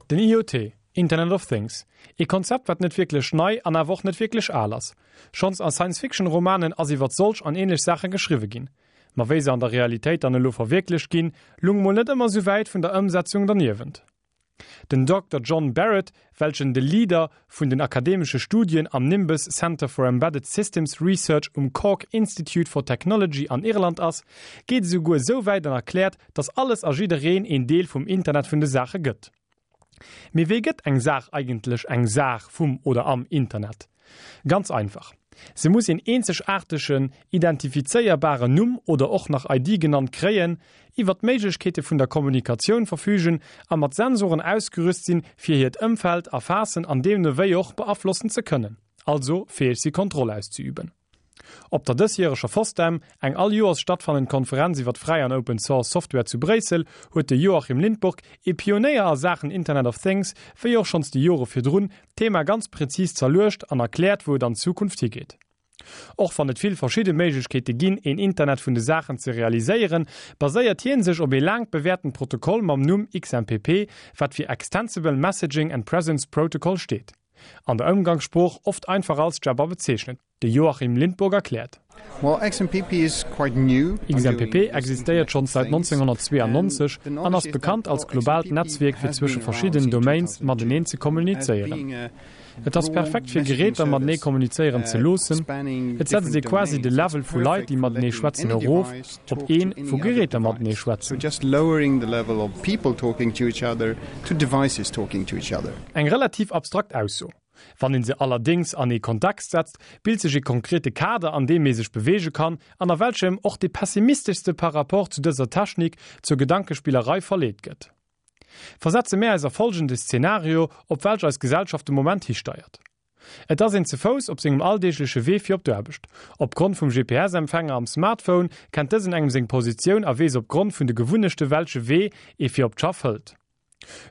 Den IoT, Internet of Things, ee Konzept wat net wierklech nei an awer och net wierklech al ass. Schonns a Science-Fiction-Romanen ass iwwert solch an ähnlech Saache geschriwwe ginn. Ma wéi se an der Realitéit dann elo verwierklecht ginn, lung mol net ëmmer sou wäit vun der Ëmsetzung derniewent. Den Dokter John Barrett, welchen de Leader vun den akademesche Studien am Nimbus Centre for Embedded Systems Research um Cork Institute for Technology an Irland ass, geet esouguer esou wäit an erkläert, dass alles a jiddereen een Deel vum Internet vun de Saache gëtt. Mee wéi gëtt eng Saach eigentlech eng Saach vum oder am Internet? Ganz einfach, Se muss een eenzegaartegen, identifizéierbaren Numm oder och nach ID genannt kréien, iwwer d'Méiglechkeete vun der Kommunikatioun verfügen a mat Sensoren ausgerüst sinn, fir hiert Ëmfeld erfaassen an deemno wéi och beaflossen ze kënnen, also fäeg si Kontroll auszeüben. Op der dësjäreger FOSDEM, eng all Joers stattfannend Konferenz iwwer fräi an Open Source Software zu Bréissel, huet de Joachim Lindborg, ee Pionéier a Saachen Internet of Things, wéi och schonns déi Jore virdrun, d'Thema ganz präzis zerluecht an erkläert, wou et an Zukunft higeet. Och wann et vill verschidde Méiglechkeete ginn, een Internet vun de Saachen ze realiséieren, baséiert hien sech op ee laang bewäertent Protokoll mam Numm XMPP, wat fir Extensible Messaging and Presence Protocol steet. An der Ëmgangssprooch oft einfach als Jabber bezeechnet. De Joachim Lindborg erkläert. XMPP existéiert schonns säit 1992 an ass bekannt als globaalt Netzwierk fir zwësche verschiddenen Domains mateneen ze kommunizéieren. Et ass perfekt fir Geräter matenee kommunizéieren ze loossen. Et setzt ee quasi de Level vu Leit déi matenee schwätzen erof op een wou Geräter matenee schwätzen. Eng relativ abstrakt Ausso. Wann een se allerdéngs an ee Kontext setzt, bilt sech ee konkrete Kader, an deem ee sech beweege kann an a welchem och dee pessimisteschste par rapport zu dëser Technik zur Gedankespillerei verleet gëtt. Versetze mär eis a folgende Szenario, op welch eis Gesellschaft de Moment histeiert. Et ass een ze Fouss op sengem alldeegleche Wee fir op d'Aarbecht. Opgrond vum GPS-Empfänger am Smartphone kennt dësen engem seng Positioun a weess opgrond vun de Gewunnechte welche Wee ee fir op d'Schaff hëlt.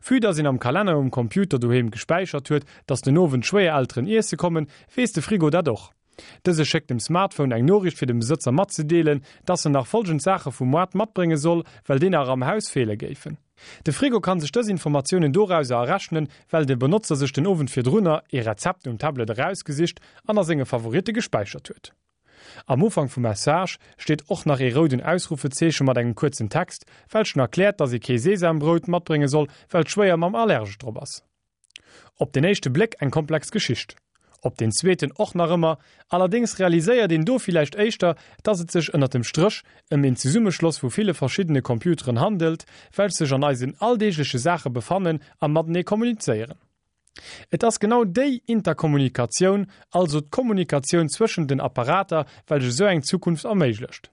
Vue dass een am Kalenner um Computer doheem gespäichert huet, dass den Owend d'Schwéierelteren iesse kommen, weess de Frigo dat och. Dëse schéckt dem Smartphone eng Noriicht fir dem Besëtzer matzedeelen, dass en nach folgend Saache vum Moart matbrénge soll, well déi nach am Haus feele géifen. De Frigo kann sech dës Informatiounen dorauser errechnen, well de Benotzer sech den Owend virdrunner ee Rezept um Tablet erausgesicht an a senge Favoritte gespäichert huet. Am Ufank vum Message steet och nach ee rouden Ausrufezeeche mat engem kuerzen Text, welchen erkläert, dass ee kee Sesambrout matbrénge soll, well d'Schwéiermamm allergesch drop ass. Op den éischte Bléck eng komplex Geschicht. Op den zweeten och nach ëmmer. Allerdéngs realiséiert een do villäicht éischter, dass et sech ënnert dem Stréch ëm een Zesummeschloss vu ville verschiddene Computeren handelt, welch sech an eisen alldeegleche Saache befannen a matenee kommunizéieren. Et ass genau déi Interkommunikatioun, also d'Kommunikatioun zwëschen den Apparater, welch esou eng Zukunft erméiglecht.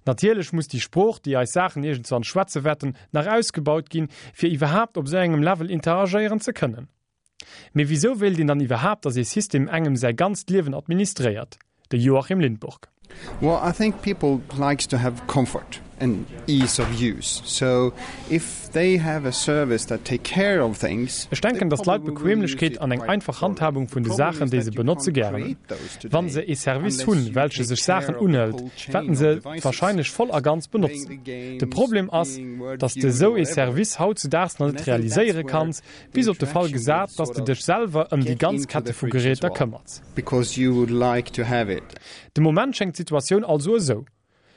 Natierlech muss déi Sprooch, déi eis Saachen iergendswann schwätze wäerten, nach ausgebaut ginn, fir iwwerhaapt op esou engem Level interagéieren ze kënnen. Mee wisou wéilt een dann iwwerhaapt, dass ee System engem säi ganzt Liewen administréiert? De Joachim Lindborg. Well I think people likes to have comfort and ease of use so if they have a service that take care of things. Ech denken, dass d'Leit Bequemlechkeet an eng einfach Handhabung vun de Saachen, déi se benotze gären hunn. Wann se ee Service hunn, welche sech Saachen unhëlt, wäerten se et wahrscheinlech voll a ganz benotzen. De Problem ass, dass de sou ee Service hautzudaags nach net realiséiere kanns, bis op de Fall gesat, dass de dech selwer ëm déi ganz Kette vu Geräter këmmerts. Because you would like to have it. De Moment schéngt d'Situatioun also esou,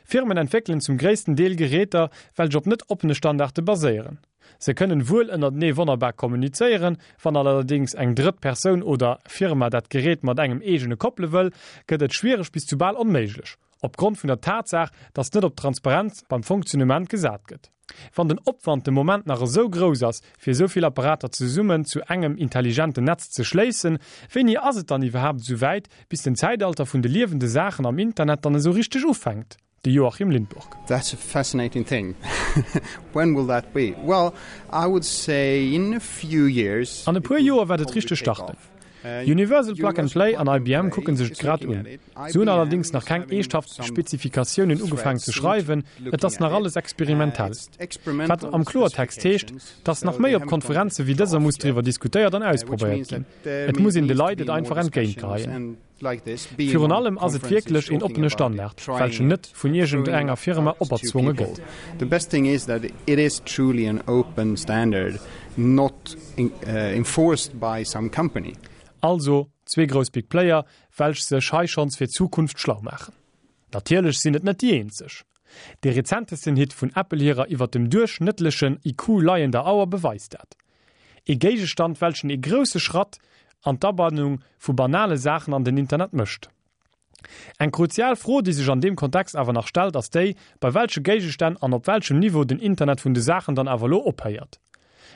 Firmen entwéckelen zum gréissten Deel Geräter, welch op net oppene Standarde baséieren. Se kënnen wuel ënnertenee wonnerbar kommunizéieren, wann allerdéngs eng drëtt Persoun oder Firma dat Gerät mat engem eegene koppele wëll, gëtt et schwiereg bis zu bal onméiglech, opgrond vun der Tatsaach, dass net op Transparenz beim Fonctionnement gesat gëtt. Wann den Opwand de Moment nach esou grouss ass, fir esou vill Apparater zesummen zu engem intelligenten Netz ze schléissen, wéini ass et dann iwwerhaapt esou wäit, bis den Zäitalter vun de liewende Saachen am Internet dann esou richteg ufänkt? De Joachim Lindborg. That's a fascinating thing. When will that be? Well, I would say in a few years. An e puer Joer wäert et richteg starten. Universal Plug and Play an IBM kucke sech et grad un. Se hunn allerdéngs nach keng eeschthaft Spezifikatiounen ugefaangen ze schreiwen, et ass nach alles experimentell. Wat am Kloertext heescht, dass nach méi op Konferenze wéi dëser muss driwwer diskutéiert an ausprobéiert ginn. Et muss een de Leit et einfach entgéintgeheien. Virun allem ass et wierklech een oppene Standard, welchen net vun iergend enger Firma operzwonge gëtt. not enforced by some company. Also zwee grouss Big Player, welch sech hei schonns fir d'Zukunft schlau maachen. Natierlech sinn et net déi eenzeg. Dee rezentesten Hit vun Apple hirer iwwer dem duerchschnëttlechen IQ leiender Auer beweist dat. Ee Géigestand welchen ee grousse Schratt an d'Abannung vu banale Saachen an den Internet mécht. Eng kruzial Fro, déi sech an deem Kontext awer nach stellt, ass déi, bei welche Géigestänn an op welchem Niveau den Internet vun de Saachen dann awer elo ophéiert.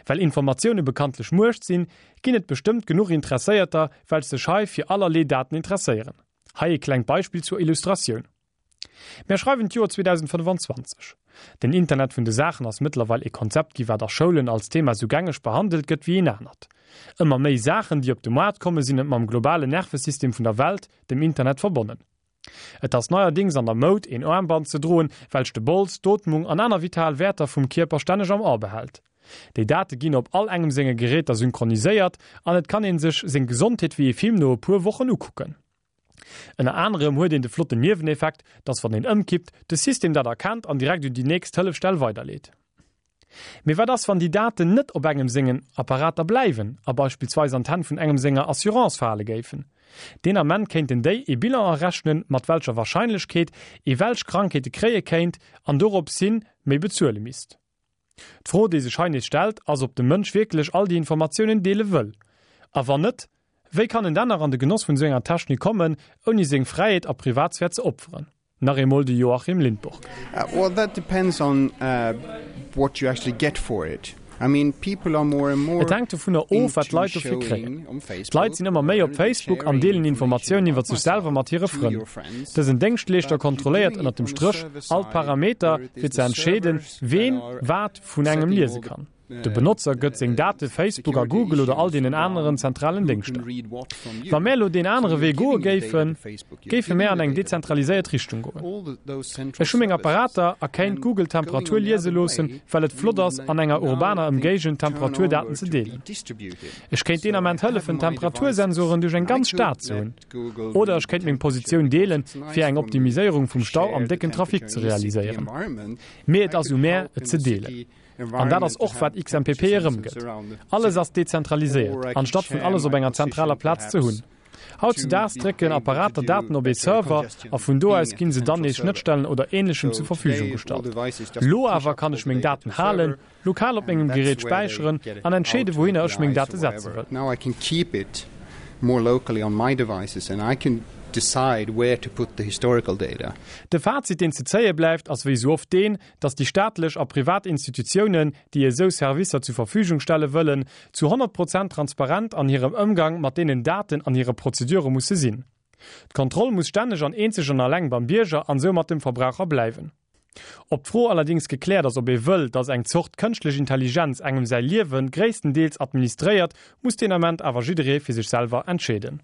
Well Informatioune bekanntlech Muecht sinn, ginn et bestëmmt genuch Interesséierter, welch sech hei fir allerlee Daten interesséieren. Hei ee klengt Beispill zur Illustratioun. Mär schreiwen d'Joer 2025. Den Internet vun de Saachen ass mëttlerweil ee Konzept gi wat a Schoulen als Thema sou gängeg behandelt gëtt wéi een anert. Ëmmer méi Saachen déi op de Moart komme sinn mam globalen Nervesystem vun der Welt, dem Internet, verbonnen. Et ass neierdings an der Moud een Aarmband ze droen, welch de Bols, d'Ootmung an aner vital Wäerter vum Kierper stänneg am A behält. Déi Date ginn op all engem senge Geräter synchroniséiert an et kann een sech seng Gesondheet wéi ee Film no e puer Wochen ukucken. Ënner anerem huet een de flotten Nieweneffekt, dass wann een ëmkippt, de System dat erkennt an direkt un déi nächst Hëllefstell weiderleet. Mee wat ass wann déi Daten net op engem sengen Apparater bleiwen a beispillsweis an d'Hänn vun engem senger Assurance fale géifen? Deen Ament kéinten déi ee Bilan errechnen, mat welcher Warscheinlechkeet ee welch Krankheete kréie kéint an dorops hin méi bezuele misst. D'Fro, déi sech hei nees stellt, ass, ob de Mënsch wierklech all déi Informatiounen deele wëll. A wann net, wéi kann en dann nach an de Genoss vun esou enger Technik kommen, ouni seng Fräiheet a Privatsphär ze opferen? Nach eemol de Joachim Lindborg. Well that depends on what you actually get for it. I mean, people are more and more Et hänkt dovunner of, wat d'Leit dofir kréien. D'Leit sinn ëmmer méi op Facebook an deelen Informatiounen iwwer sech selwer mat hire Frënn. Dësen Déngschtleeschter kontrolléiert ënnert dem Stréch all d'Parameter, fir ze entscheeden, ween wat vun engem liese kann. De Benotzer gëtt seng Date Facebook a Google oder all deenen aneren zentralen Déngschter. Wa mär elo deen anere Wee goe géifen, géife mär an eng dezentraliséiert Richtung goen. Ech hu meng Apparater a kéint Google d'Temperatur liese loossen, well et flott ass, an enger urbaner Ëmgéigend Temperaturdaten ze deelen. Ech kéint deen Ament hëllefen, Temperatursensoren duerch eng ganz Stad ze hunn. Oder ech kéint meng Positioun deelen, fir eng Optimiséierung vum Stau am décken Trafic ze realiséieren. Mee et ass u mär, et ze deelen. An dat ass och, wat XMPP erëmgëtt. Alles ass dezentraliséiert, anstatt vun alles op enger zentraler Plaz ze hunn. Hautzedaags drécken Apparater Daten op ee Server a vun do aus ginn se dann nees Schnëttstellen oder Ähnlechem zur Verfügung gestallt. Lo awer kann ech meng Daten halen, lokal op mengem Gerät späicheren an entscheeden, wouhinner ech meng Date setze wëll. De Fazit, deen ze zéie bleift, ass wéi esou oft deen, datt déi staatlech a privat Institutiounen, déi esou Servicer zur Verfügung stelle wëllen, zu 100 Prozent transparent an hirem Ëmgang mat deenen Daten an hire Prozedure musse sinn. D'Kontroll muss stänneg an eenzeg an alleng beim Bierger an soumat dem Verbraucher bleiwen. Ob d'Fro allerdings gekläert ass, ob ee wëll, datt eng Zort kënschtlech Intelligenz engem säi Liewe gréisstendeels administréiert, muss deen Ament awer jidderee fir sech selwer entscheeden.